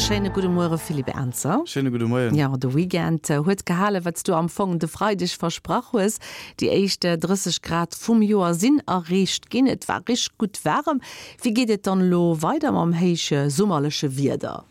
Schéine gudde Muere Philippe Ernzer. Schéine gudde Moien. Jo, de Weekend huet gehalen, wat s du am Fong de Freideg versprach hues. Déi éischt 30 Grad vum Joer sinn erreecht ginn. Et war richteg gutt waarem. Wéi geet et dann elo weider mam héichsummerleche Wieder?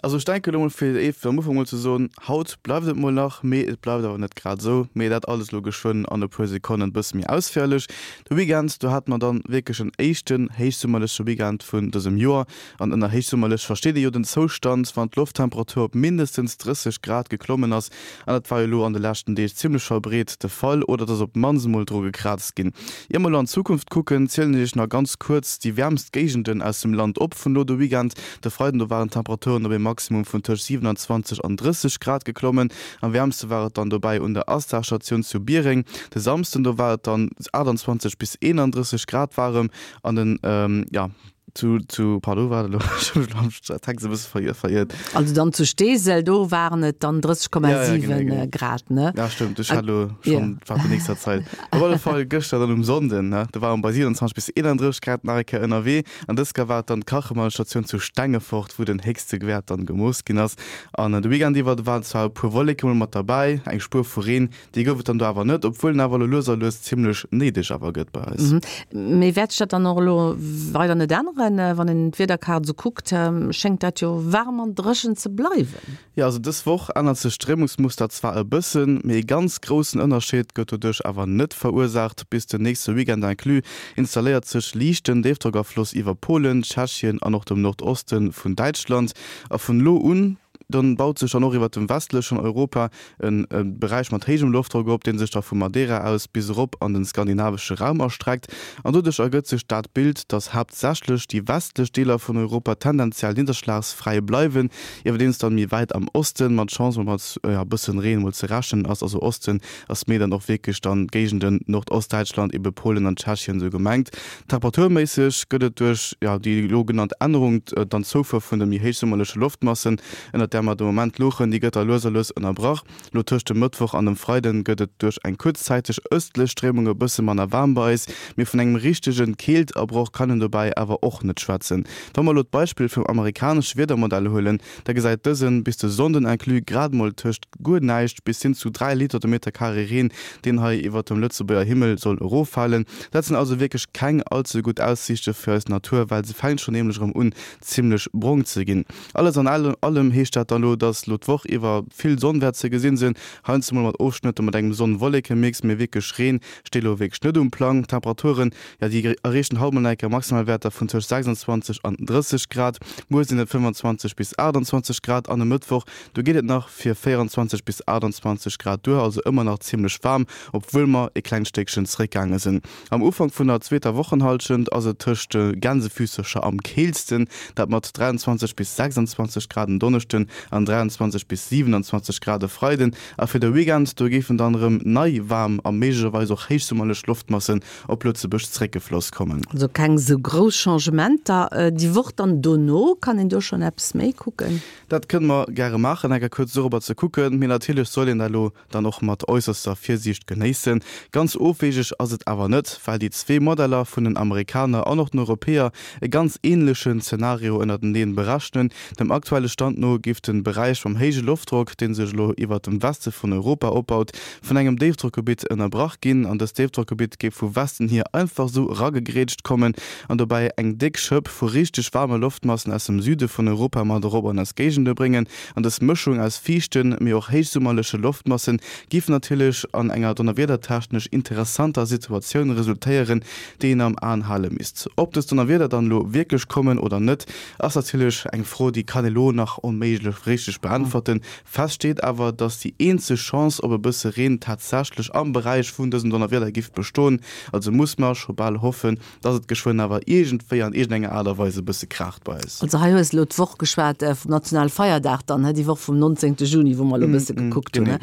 Also ech denken elo mol fir fir am Ufank mol ze soen, haut bleift et mol nach, mee et bleift awer net grad esou. Mee dat alles elo geschwënn an e puer Sekonnen bësse méi ausféierlech. De Weekend, do hate mer dann wierklech en éischten héichsummerleche Weekend vun dësem Joer. An ënner héichsummerlech versteet ee jo den Zoustand, wann d'Lofttemperatur op mindestens 30 Grad geklommen ass. An dat war jo elo an de leschten Deeg zimmlech verbreet de Fall, oder et ass op d'mannst emol dru gekraazt ginn. Ier mer elo an d'Zukunft kucken, zielen ech iech nach ganz kuerz déi wäermst Géigenden aus dem Land op vun elo de Weekend. De Freiden do waren d'Temperaturen op ee Maximum vun tëscht 27 an 30 Grad geklommen. Am wäermste war et dann dobäi un der Astar-Statioun zu Biereng. De Samsden do war et dann 28 bis 31 Grad waarem an den, jo, zu, zu, pardon, waart elo, ech hu mech elo am Text e bësse veriert. Also dann zu Steesel, do waren et dann 30,7 Grad, ne? Ja, stëmmt, ech hat elo schonn, war déi nächster Zait. Op alle Fall gëschter dann um Sonnden, ne, do ware mer bei 27 bis 31 Grad nach eng Kéier ënnerwee. An dës Kéier war et dann d'Kachemannstatioun zu Stengefort, wou den héchste Wäert dann gemooss ginn ass. An de Weekend iwwer waren zwar e puer Wolleke mol mat derbäi, eng Spuer vu Reen, déi gouf et dann do awer net, obwuel en awer elo lues a lues zimmlech néideg awer gëtt bei eis. Mee wäert sech dat dann och elo weider net änneren? Wann een d'Wiederkaart esou kuckt, schéngt dat jo waarm an dréchen ze bleiwen. Jo, also dës Woch ännert sech d'Stréimungsmuster zwar e bëssen, mee e ganz groussen Ënnerscheed gëtt doduerch awer net verursaacht. Bis den nächste Weekend inclus installéiert sech liichten Déifdrockafloss iwwer Polen, Tschechien an och dem Nordoste vun Däitschland. A vun elo un dann baut sech dann och iwwert dem westlechen Europa e Beräich mat héijem Loftdrock op, dee sech da vu Madeira aus bis erop an de skandinavesche Raum erstreckt. An doduerch ergëtt sech dat Bild, dass haaptsächlech déi westlech Deeler vun Europa tendenziell nidderschlagsfräi bleiwen, iwwerdeems dann méi wäit am Osten mat Chance mol mat e bëssen Reen mol ze rechnen ass. Also Osten ass méi dann och wierklech dann d'Géigenden Nordostdäitschland, ebe Polen an Tschechien esou gemengt. Temperaturméisseg gëtt et duerch déi elo genannt Ännerung dann d'Zoufuer vun de méi héichsummerleche Loftmassen, ënnert där mer de Moment louchen, déi gëtt da lues a lues ënnerbrach. Lo tëscht dem Mëttwoch an dem Freiden gëtt et duerch eng kuerzzäiteg ëstlech Stréimung e bësse manner waarm bei eis, mee vun engem richtege Keeltabroch kann een dobäi awer och net schwätzen. Wa mer elo d'Beispill vum amerikanesche Wiedermodell huelen, da gesäit dësen bis de Sonnden inclus grad mol tëscht guer näischt bis hin zu 3 Liter de Meter Carré Reen, deen hei iwwert dem Lëtzebuerger Himmel soll eroffalen. Dat sinn also wierklech keng all ze gutt Aussiichte fir eis Natur, well se fänkt schonn nämlech erëm un zimmlech brong ze ginn. Alles an allem heescht dat dann elo, dass elo d'Woch iwwer vill Sonn wäert ze gesinn sinn, heiansdo mol mat Ofschnëtter mat engem Sonn-Wolleke-Mix, mee wierklech Reen steet elo wierklech net um Plang. D'Temperaturen, jo déi erreechen haut mol nach eng Kéier Maximalwäerter vun tëscht 26 an 30 Grad, muer sinn et 25 bis 28 Grad an e Mëttwoch, do geet et nach fir 24 bis 28 Grad duer, also ëmmer nach zimmlech waarm, obwuel mer e klengt Stéckchen zeréckgaange sinn. Am Ufank vun der zweeter Wochenhallschent ass et tëscht de Gänsefüssercher am keelsten, dat mat 23 bis 26 Grad en Donneschden an 23 bis 27 Grad e Freiden. A fir de Weekend, do géifen dann erëm nei waarm a méiglecherweis och héichsummerlech Loftmassen op Lëtzebuerg zeréckgefloss kommen. Also keng sou grouss Changementer. Déi Woch dann dono, kann een do schonn eppes méi kucken? Dat kënne mer gäre maachen, enker kuerz dorobber ze kucken, mee natierlech soll een dat elo dann och mat äusserster Virsiicht genéissen. Ganz ofwegeg ass et awer net, well déi zwee Modeller vun den Amerikaner an och den Europäer e ganz änlechen Zenario ënnerteneen berechnen. Dem aktuelle Stand no géif de Beräich mam héije Loftdrock, dee sech elo iwwert dem Weste vun Europa opbaut, vun engem Déifdrockgebitt ënnerbrach ginn an dëst Déifdrockgebitt géif vu Westen hier einfach sou eragegrätscht kommen an dobäi eng déck Schëpp vu richteg waarme Loftmassen aus dem Süde vun Europa mat erop an eis Géigende bréngen. An dës Mëschung aus fiichten, mee och héichsummerleche Loftmassen giff natierlech an enger donnerwiedertechnesch interessanter Situatioun resultéieren, déi een am Aen hale misst. Ob dës Donnerwieder dann elo wierklech kommen oder net, ass natierlech eng Fro, déi kann ee lo nach onméiglech richteg beäntwerten. Fest steet awer, dass déi eenzeg Chance op e bësse Reen tatsächlech am Beräich vun dësen Donnerwieder giff bestoen. Also muss mer scho bal hoffen, dass et geschwënn awer iergendwéi an iergendenger Aart a Weis e bësse kraacht bei eis. Also hei hues de elo d'Woch geschwat vum nationale Feierdag dann, déi Woch vum 19. Juni, wou mer elo e bësse gekuckt hunn.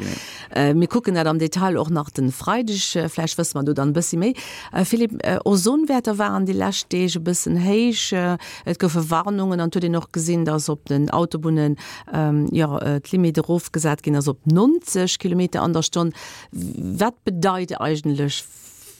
Mir kucken dat am Detail och nach de Freideg, vläicht wësse mer do dann e bëssi méi. Philippe, Ozonwäerter waren déi lescht Deeg e bëssen héich, et goufe Warnungen an et huet een och gesinn, dass op den Autobunnen, jo, d'Limite erofgesat ginn ass op 90 Kilometer an der Stonn. Wat bedeit eigentlech.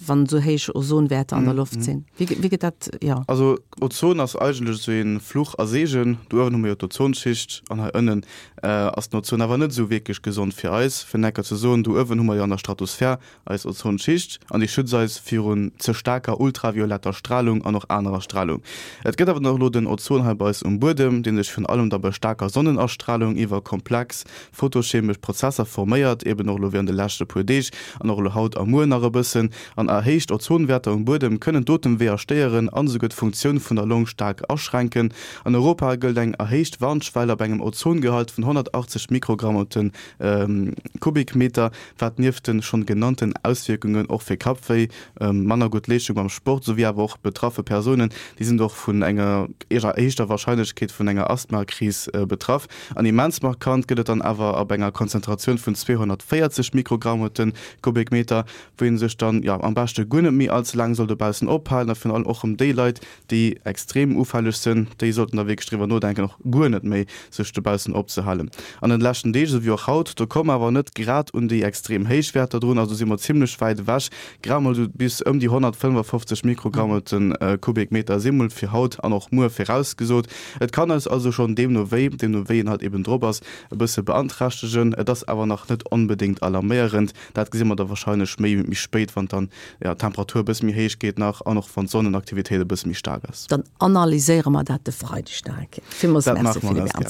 wann esou héich Ozonwäerter an der Loft sinn? Wéi wéi gëtt dat, jo. Also Ozon ass eigentlech esou ee Fluch a Seegen. Do uewen hu mer jo d'Ozonschicht an hei ënnen ass den Ozon awer net esou wierklech gesond fir eis. Fir necker ze soen, do uewen hu mer jo an der Stratosphär eis Ozonschicht an déi schützt eis virun ze staarker ultravioletter Stralung an och anerer Stralung. Et gëtt awer dann och elo den Ozon hei bei eis um Buedem, dee sech virun allem da bei staarker Sonnenastralung iwwer komplex photochemesch Prozesser forméiert, eben och elo während de leschte puer Deeg an och elo haut a muer nach e bëssen. An erhéicht Ozonwäerter um Buedem kënnen d'Otemweeër stéieren an esouguer d'Funktioun vun der Long staark aschränken. An Europa gëllt eng erhéicht Warnschwell ab engem Ozongehalt vun 180 Mikrogramm op de Kubikmeter, wat nieft de schonn genannten Auswierkungen och fir Kappwéi, manner gutt Leeschtung beim Sport souwéi awer och betraffe Persounen, déi sinn och vun enger erhéichter Warscheinlechkeet vun enger Asthmakris betraff. An immens markant gëtt et dann awer ab enger Konzentratioun vun 240 Mikrogramm op de Kubikmeter, wou ee sech dann, jo, am beschte guer net méi all ze laang soll dobaussen ophalen a virun allem och rëm déi Leit, déi extrem ufälleg sënn, déi sollten da wierklech driwwer nodenken, och guer net méi sech dobaussen opzehalen. An den leschten Deeg, esou wéi och haut, do komme mer awer net grad un déi extrem héich Wäerter drun, also si mer zimlech wäit ewech, grad mol esou bis ëm déi 155 Mikrogramm op de Kubikmeter si mol fir haut an och muer virausgesot. Et kann eis also schonn deemno wéi, deemno wéi een halt eben drop ass, e bësse beanträchtegen. Et ass awer nach net onbedéngt alarméierend. Dat gesi mer da warscheinlech méi méi spéit, wann dann d'Temperatur e bësse méi héich geet nach an och wann d'Sonnenaktivitéit e bësse méi staark ass. Dann analyséiere mer dat de Freideg nach eng Kéier. Villmools Merci, Philippe Ernzer.